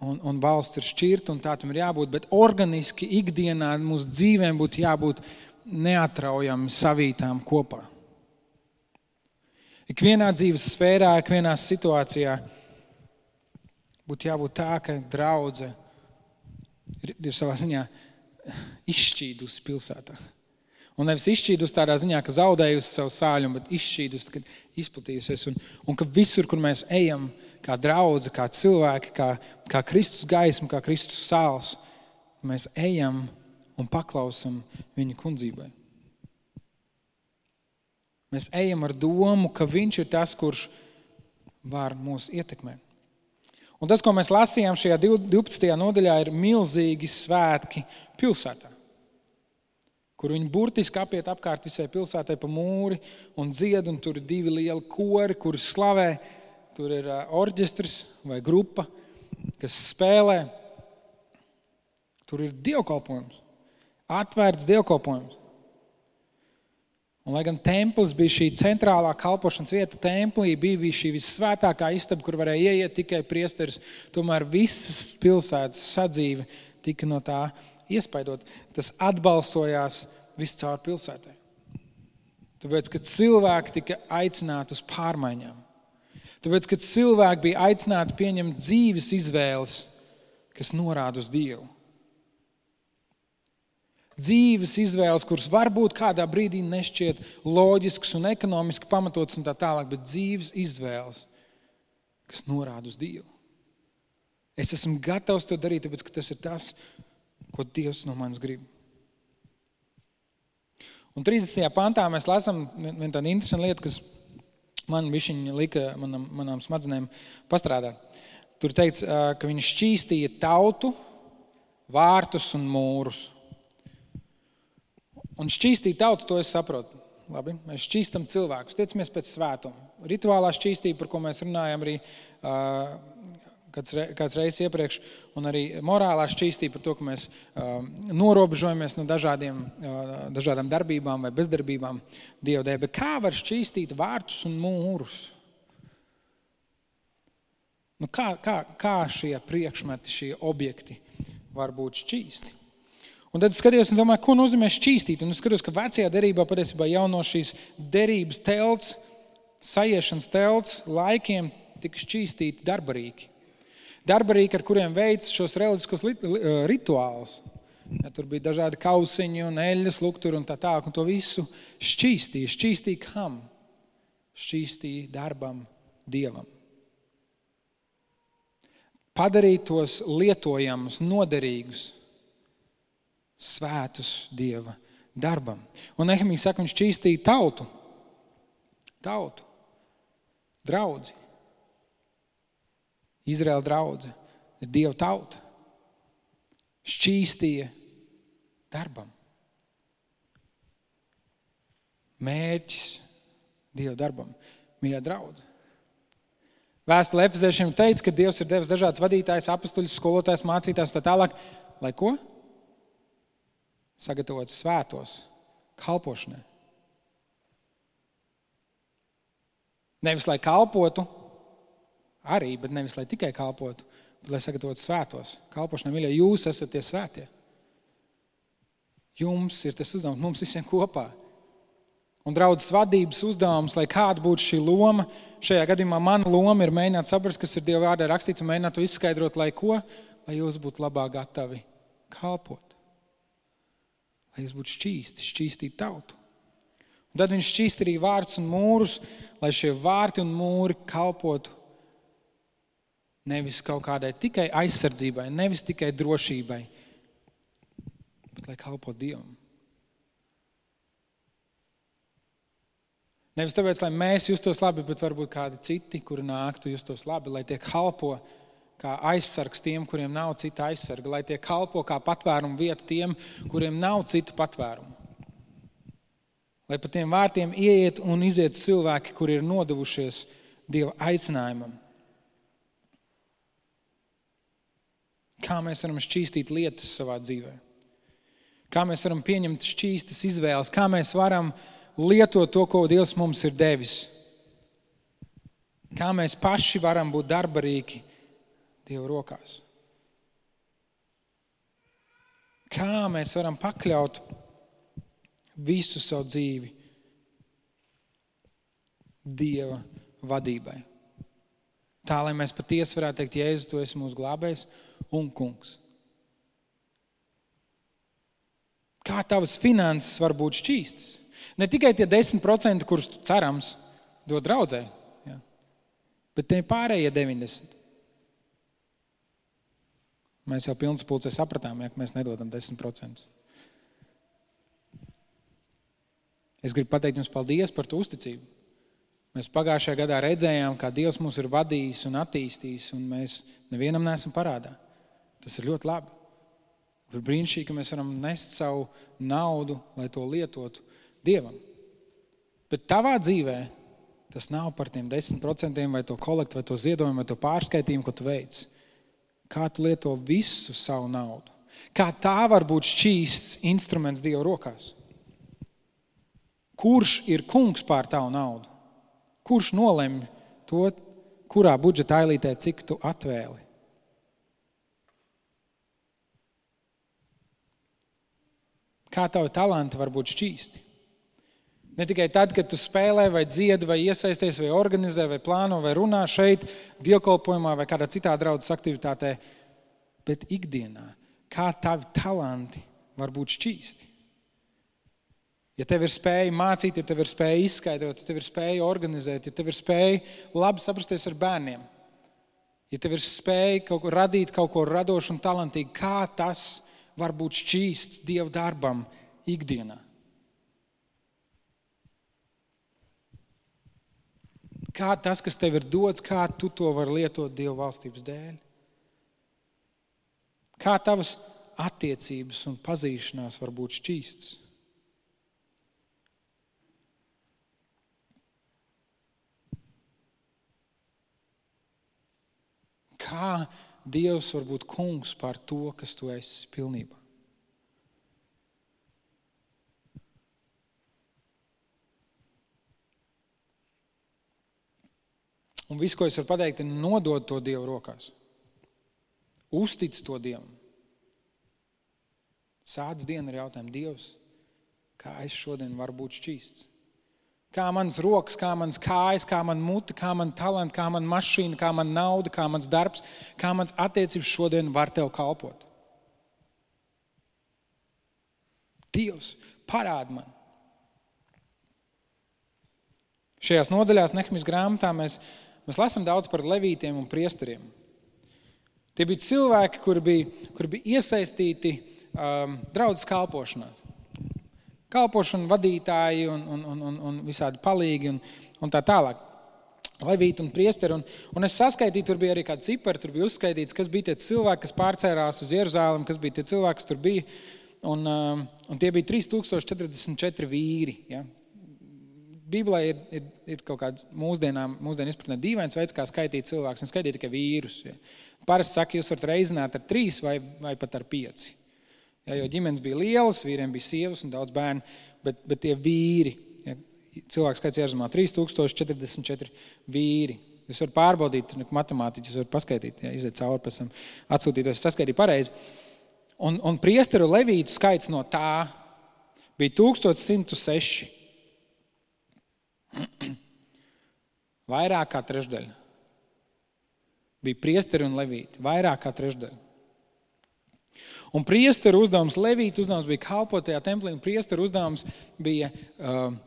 un valsts ir šķirta, un tā tam ir jābūt, bet organiski ikdienā mūsu dzīvēm būtu jābūt neatraujami savītām kopā. Ikvienā dzīves sfērā, ikvienā situācijā būtu jābūt tā, ka draudze ir savā ziņā izšķīdusi pilsētā. Un nevis izšķīdusi tādā ziņā, ka zaudējusi savu sāļumu, bet izšķīdusi, kad izplatījusies. Un ka visur, kur mēs ejam, kā draudze, kā cilvēki, kā Kristus gaisma, kā Kristus sāls, mēs ejam un paklausam viņa kundzībai. Mēs ejam ar domu, ka viņš ir tas, kurš var mūs ietekmēt. Un tas, ko mēs lasījām šajā 12. nodaļā, ir milzīgi svētki pilsētā, kur viņi burtiski apiet apkārt visai pilsētai pa mūri un dzied, un tur ir 2 lieli kori, kuri slavē. Tur ir orģestris vai grupa, kas spēlē. Tur ir dievkalpojums, atvērts dievkalpojums. Un, lai gan templis bija šī centrālā kalpošanas vieta, templī bija šī vissvētākā istaba, kur varēja ieiet tikai priesteris, tomēr visas pilsētas sadzīve tika no tā iespaidot. Tas atbalsojās viscaur pilsētai. Tāpēc, ka cilvēki tika aicināti uz pārmaiņām. Tāpēc, kad cilvēki bija aicināti pieņemt dzīves izvēles, kas norāda uz Dievu. Dzīves izvēles, kuras varbūt kādā brīdī nešķiet loģisks un ekonomiski pamatots un tā tālāk, bet dzīves izvēles, kas norāda uz Dievu. Es esmu gatavs to darīt, tāpēc, ka tas ir tas, ko Dievs no manis grib. Un 30. pantā mēs lasām vienu tādu interesantu lietu, kas man bišķiņ lika manām smadzenēm pastrādāt. Tur teikts, ka viņš šķīstīja tautu, vārtus un mūrus. Un šķīstīt tautu, to es saprotu. Labi, mēs šķīstam cilvēkus, tiecamies pēc svētuma. Rituālā šķīstība, par ko mēs runājam arī kāds reizes iepriekš, un arī morālā šķīstība par to, ka mēs norobežojamies no dažādām darbībām vai bezdarbībām Dieva dēļ. Bet kā var šķīstīt vārtus un mūrus? Nu, kā šie priekšmeti, šie objekti var būt šķīsti? Un tad skatījos un domāju, ko nozīmē šķīstīt. Un es skatos, ka vecajā derībā patiesībā jau no šīs derības telts, sajiešanas telts laikiem tika šķīstīti darbarīki. Darbarīki, ar kuriem veic šos reliģiskos rituālus. Ja, tur bija dažādi kausiņi un eļļas, lukturi un tā tālāk. Un to visu šķīstīja. Šķīstīja kam? Šķīstīja darbam Dievam. Padarīt tos lietojamus, noderīgus, svētus Dieva darbam. Un Nehemija saka, viņš šķīstīja tautu, draudzi. Izraēla draudze ir Dieva tauta. Šķīstīja darbam. Mērķis Dieva darbam. Mīļā draudze. Vēstule Efeziešiem teica, ka Dievs ir devis dažādas vadītājs, apustuļus, skolotājs, mācītājs tā tālāk. Lai ko? Sagatavot svētos kalpošanai. Nevis, lai kalpotu, arī, bet nevis, lai tikai kalpotu, bet lai sagatavotu svētos kalpošanai. Mīļie, jūs esat tie svētie. Jums ir tas uzdevums, mums visiem kopā. Un draudzes vadības uzdevums, lai kāda būtu šī loma, šajā gadījumā mana loma ir mēģināt saprast, kas ir Dieva vārdā rakstīts un mēģināt to izskaidrot, lai ko? Lai jūs būtu labāk gatavi kalpot. Lai jūs būtu šķīstīt tautu. Un tad viņš šķīst arī vārtus un mūrus, lai šie vārti un mūri kalpotu nevis kaut kādai tikai aizsardzībai, nevis tikai drošībai, bet lai kalpotu Dievam. Nevis tāpēc, lai mēs justos labi, bet varbūt kādi citi, kuri nāktu justos labi, lai tie kalpo kā aizsargs tiem, kuriem nav cita aizsarga, lai tie kalpo kā patvērumu vieta tiem, kuriem nav citu patvērumu. Lai pa tiem vārtiem ieiet un iziet cilvēki, kuri ir nodevušies Dieva aicinājumam. Kā mēs varam šķīstīt lietas savā dzīvē? Kā mēs varam pieņemt šķīstas izvēles? Kā mēs varam lietot to, ko Dievs mums ir devis? Kā mēs paši varam būt darbarīgi Dieva rokās? Kā mēs varam pakļaut visu savu dzīvi Dieva vadībai? Tā, lai mēs patiesi varētu teikt, Jēzus, tu esi mūsu glābējs un kungs. Kā tavas finanses var būt šķīstas? Ne tikai tie 10%, kurus tu cerams dod draudzē, ja, bet tie pārējie 90%. Mēs jau pilns pulcē sapratām, ja, ka mēs nedodam 10%. Es gribu pateikt jums paldies par to uzticību. Mēs pagājušajā gadā redzējām, kā Dievs mūs ir vadījis un attīstījis, un mēs nevienam neesam parādā. Tas ir ļoti labi. Ir brīnišķīgi, ka mēs varam nest savu naudu, lai to lietotu Dievam. Bet tavā dzīvē tas nav par tiem 10% vai to kolektu, vai to ziedojumu, vai to pārskaitījumu, ko tu veic. Kā tu lieto visu savu naudu? Kā tā var būt šķīsts instruments Dieva rokās? Kurš ir kungs pār tavu naudu? Kurš nolemj to, kurā budžeta ailītē cik tu atvēli? Kā tavi talanti var būt šķīsti? Ne tikai tad, kad tu spēlē, vai dziedi, vai iesaisties, vai organizē, vai plāno, vai runā šeit, dievkalpojumā vai kādā citā draudzes aktivitātē, bet ikdienā, kā tavi talanti var būt šķīsti. Ja tev ir spēja mācīt, ja tev ir spēja izskaidrot, ja tev ir spēja organizēt, ja tev ir spēja labi saprasties ar bērniem, ja tev ir spēja kaut ko radīt, kaut ko radošu un talantīgu, kā tas var būt šķīsts Dieva darbam ikdienā. Kā tas, kas tev ir dots, kā tu to vari lietot Dieva valstības dēļ? Kā tavas attiecības un pazīšanās var būt šķīstas? Kā Dievs var būt kungs pār to, kas tu esi pilnībā? Un viss, ko es varu pateikt, ir nodot to Dievu rokās. Uztic to Dievam. Sāc dienu ar jautājumu: Dievs, kā es šodien varu būt šķīsts? Kā manas rokas, kā manas kājas, kā man muta, kā man talanti, kā man mašīna, kā man nauda, kā mans darbs, kā mans attiecības šodien var tev kalpot? Dievs, parādi man. Šajās nodaļās Nehemijas grāmatā mēs lasām daudz par levītiem un priesteriem. Tie bija cilvēki, kuri bija iesaistīti draudzes kalpošanās. Kalpošana vadītāji un visādi palīgi un tā tālāk. Levīti un priesteri. Un es saskaitīju, tur bija arī kādi cipari, tur bija uzskaitīts, kas bija tie cilvēki, kas pārcērās uz Jeruzalemi, kas bija tie cilvēki, kas tur bija. Un tie bija 3044 vīri, ja. Bībelē ir kaut kāds mūsdienu izpratnē dīvains veids, kā skaitīt cilvēkus, un skaitīt tikai vīrus. Ja. Parasti saka, jūs varat reizināt ar 3 vai pat ar 5. Ja, jo ģimenes bija lielas, vīriem bija sievas un daudz bērnu, bet tie vīri, ja, cilvēku skaits Jeruzalmā 3044 vīri. Jūs varat pārbaudīt, matemātiķi, jūs varat paskaitīt, ja, iziet cauri pēc tam, atsūtītos, saskaitīt pareizi. Un priesteru levītu skaits no tā bija 1106. Vairāk kā trešdaļa. Bija priesteri un levīti. Vairāk kā trešdaļa. Un priesteru uzdevums, levītu uzdevums bija kalpot tajā templī, un priesteru uzdevums bija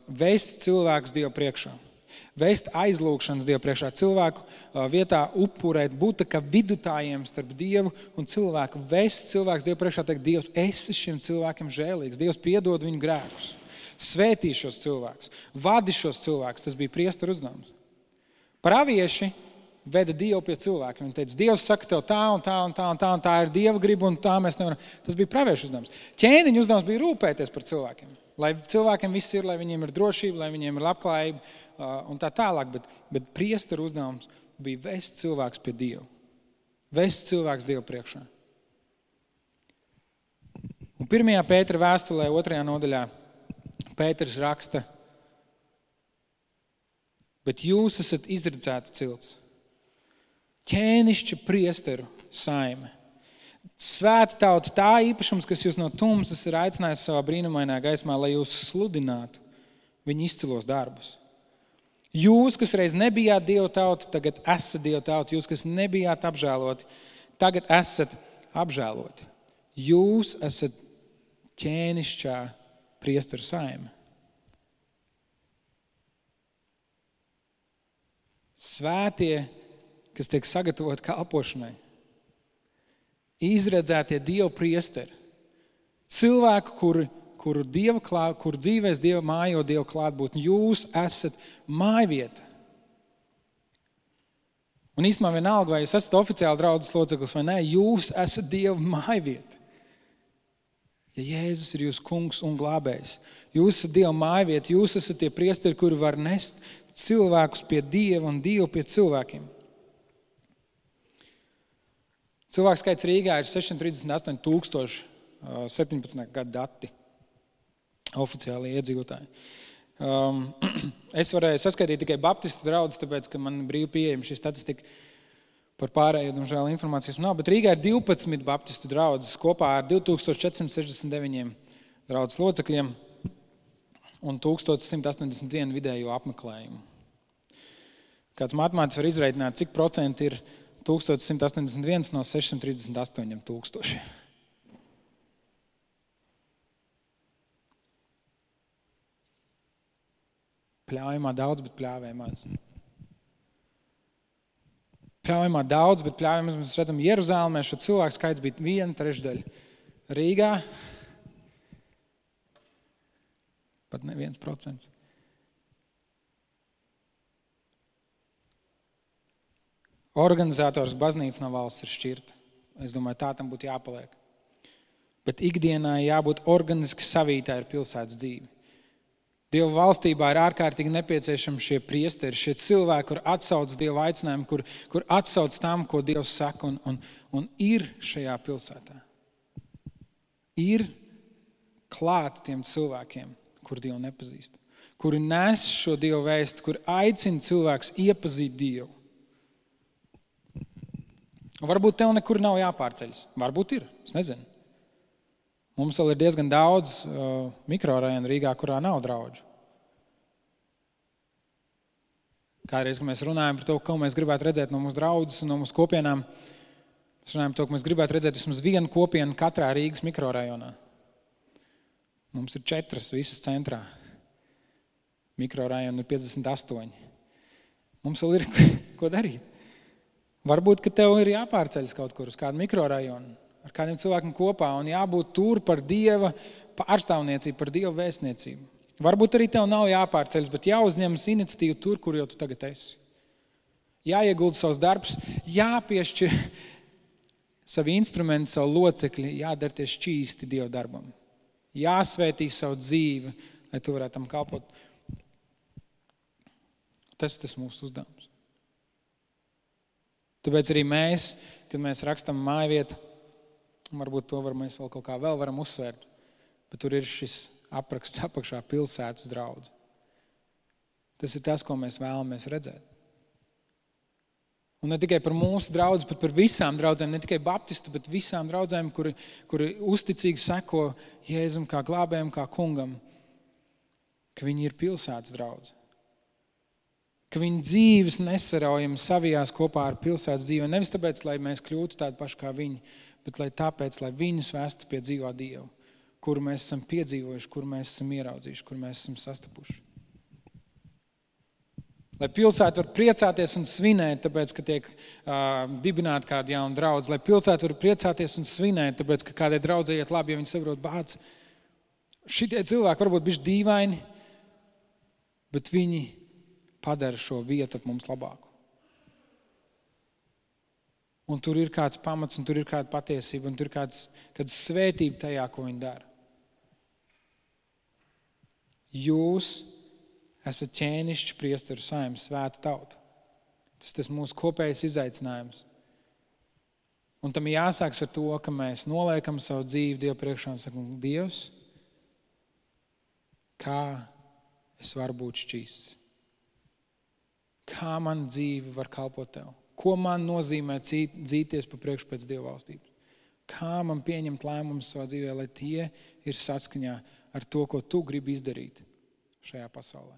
vest cilvēkus Dievu priekšā. Vest aizlūgšanas Dievu priekšā. Cilvēku vietā upurēt, būt kā vidutājiem starp Dievu un cilvēku. Vest cilvēkus Dievu priekšā, teikt: Dievs, esi šiem cilvēkiem žēlīgs. Dievs, piedod viņu grēkus. Svētī šos cilvēkus, vadi šos cilvēkus. Tas bija priesteru uzdevums. Pravieši veda Dievu pie cilvēkiem. Viņi teica: Dievs saka tev tā un tā un tā un tā, un tā ir Dieva griba, un tā mēs nevaram. Tas bija praviešu uzdevums. Ķēniņu uzdevums bija rūpēties par cilvēkiem. Lai cilvēkiem viss ir, lai viņiem ir drošība, lai viņiem ir labklājība un tā tālāk. Bet priesteru uzdevums bija vest cilvēks pie Dieva. Vest cilvēks Dievu priekšā. Un 1. Pētera vēstulē 2. nodaļā Pēters raksta: bet jūs esat izredzēta cilts, ķēnišķa priesteru saime, svēta tauta, tā īpašums, kas jūs no tumsas ir aicinājis savā brīnumainā gaismā, lai jūs sludinātu viņa izcilos darbus. Jūs, kas reiz nebijāt Dieva tauta, tagad esat Dieva tauta. Jūs, kas nebijāt apžēloti, tagad esat apžēloti. Jūs esat ķēnišķā priesteru saime. Svētie, kas tiek sagatavoti kalpošanai. Izredzētie Dieva priesteri. Cilvēki, kuru dzīvēs Dieva mājo Dieva klātbūtni. Jūs esat mājvieta. Un īstenībā vienalga, vai jūs esat oficiāli draudzes loceklis vai nē, jūs esat Dieva mājvieta. Ja Jēzus ir jūsu kungs un glābējs, jūs esat Dieva mājvieta, jūs esat tie priesteri, kuri var nest cilvēkus pie Dieva un Dievu pie cilvēkiem. Cilvēku skaits Rīgā ir 638 17. gadu dati, oficiāli iedzīvotāji. Es varēju saskaitīt tikai baptistu draudzes, tāpēc, ka man brīvi pieejama šī statistika. Par pārējo, diemžēl, informācijas nav, bet Rīgā ir 12 baptistu draudzes kopā ar 2469 draudzes locekļiem. un 1181 vidējo apmeklējumu. Kāds matemātiķis var izreikināt, cik procenti ir 1181 no 638 tūkstoši. Pļaujamā daudz, bet pļāvē maz. Pļaujamā daudz, bet pļāvē maz. Mēs redzam, Jeruzālēmē šo cilvēku skaits bija 1/3. Rīgā pat ne 1%. Organizators baznīca no valsts ir šķirta. Es domāju, tā tam būtu jāpaliek. Bet ikdienā jābūt organiski savītā ar pilsētas dzīvi. Dieva valstībā ir ārkārtīgi nepieciešami šie priesteri, šie cilvēki, kur atsauc Dieva aicinājumu, kur atsauc tam, ko Dievs saka, un ir šajā pilsētā. Ir klāt tiem cilvēkiem, kur Dievu nepazīst, kuri nes šo Dievu vēstu, kur aicina cilvēkus iepazīt Dievu. Varbūt tev nekur nav jāpārceļas. Varbūt ir, es nezinu. Mums vēl ir diezgan daudz mikrorajonu Rīgā, kurā nav draudžu. Kādreiz, kad mēs runājam par to, ko mēs gribētu redzēt no mūsu draudzes un no mūsu kopienām, mēs runājam par to, ka mēs gribētu redzēt vismaz vienu kopienu katrā Rīgas mikrorajonā. Mums ir 4 visas centrā. Mikrorajoni ir 58. Mums vēl ir ko darīt. Varbūt, ka tev ir jāpārceļas kaut kur uz kādu mikrorajonu, ar kādiem cilvēkiem kopā un jābūt tur par Dieva pārstāvniecību, par Dieva vēstniecību. Varbūt arī tev nav jāpārceļas, bet jāuzņemas iniciatīva tur, kur jau tu tagad esi. Jāiegulda savs darbs, jāpiešķir savi instrumenti, savu locekļi, jādarties šķīsti Dieva darbam. Jāsvētī savu dzīvi, lai tu varētu tam kalpot. Tas mūsu uzdevums. Tāpēc arī mēs, kad mēs rakstam mājvietu, varbūt to mēs vēl kaut kā varam uzsvērt, bet tur ir šis apraksts apakšā pilsētas draudze. Tas ir tas, ko mēs vēlamies redzēt. Un ne tikai par mūsu draudzi, bet par visām draudzēm, ne tikai baptistu, bet visām draudzēm, kuri uzticīgi seko Jēzum kā glābējam, kā kungam, ka viņi ir pilsētas draudze. Ka viņi dzīves nesaraujami savijās kopā ar pilsētas dzīvi. Nevis tāpēc, lai mēs kļūtu tādi paši kā viņi, bet tāpēc, lai viņus vestu pie dzīvā Dieva, kuru mēs esam piedzīvojuši, kuru mēs esam ieraudzījuši, kuru mēs esam sastapuši. Lai pilsēta var priecāties un svinēt, tāpēc, ka tiek dibināta kāda jauna draudze. Lai pilsēta var priecāties un svinēt, tāpēc, ka kādai draudzei iet labi, ja viņi saprot bāc. Šitie cilvēki varbūt bišķi dīvaini, bet viņi padara šo vietu ap mums labāku. Un tur ir kāds pamats, un tur ir kāda patiesība, un tur ir kāda svētība tajā, ko viņi dara. Jūs esat ķēnišķi priesteru saime, svēta tauta. Tas mūsu kopējais izaicinājums. Un tam jāsāks ar to, ka mēs noliekam savu dzīvi Dievu priekšā un sakam, Dievs, kā es varu būt šķīsts? Kā man dzīve var kalpot tev? Ko man nozīmē dzīties pa priekšu pēc Dieva valstības? Kā man pieņemt lēmumus savā dzīvē, lai tie ir saskaņā ar to, ko tu gribi izdarīt šajā pasaulē?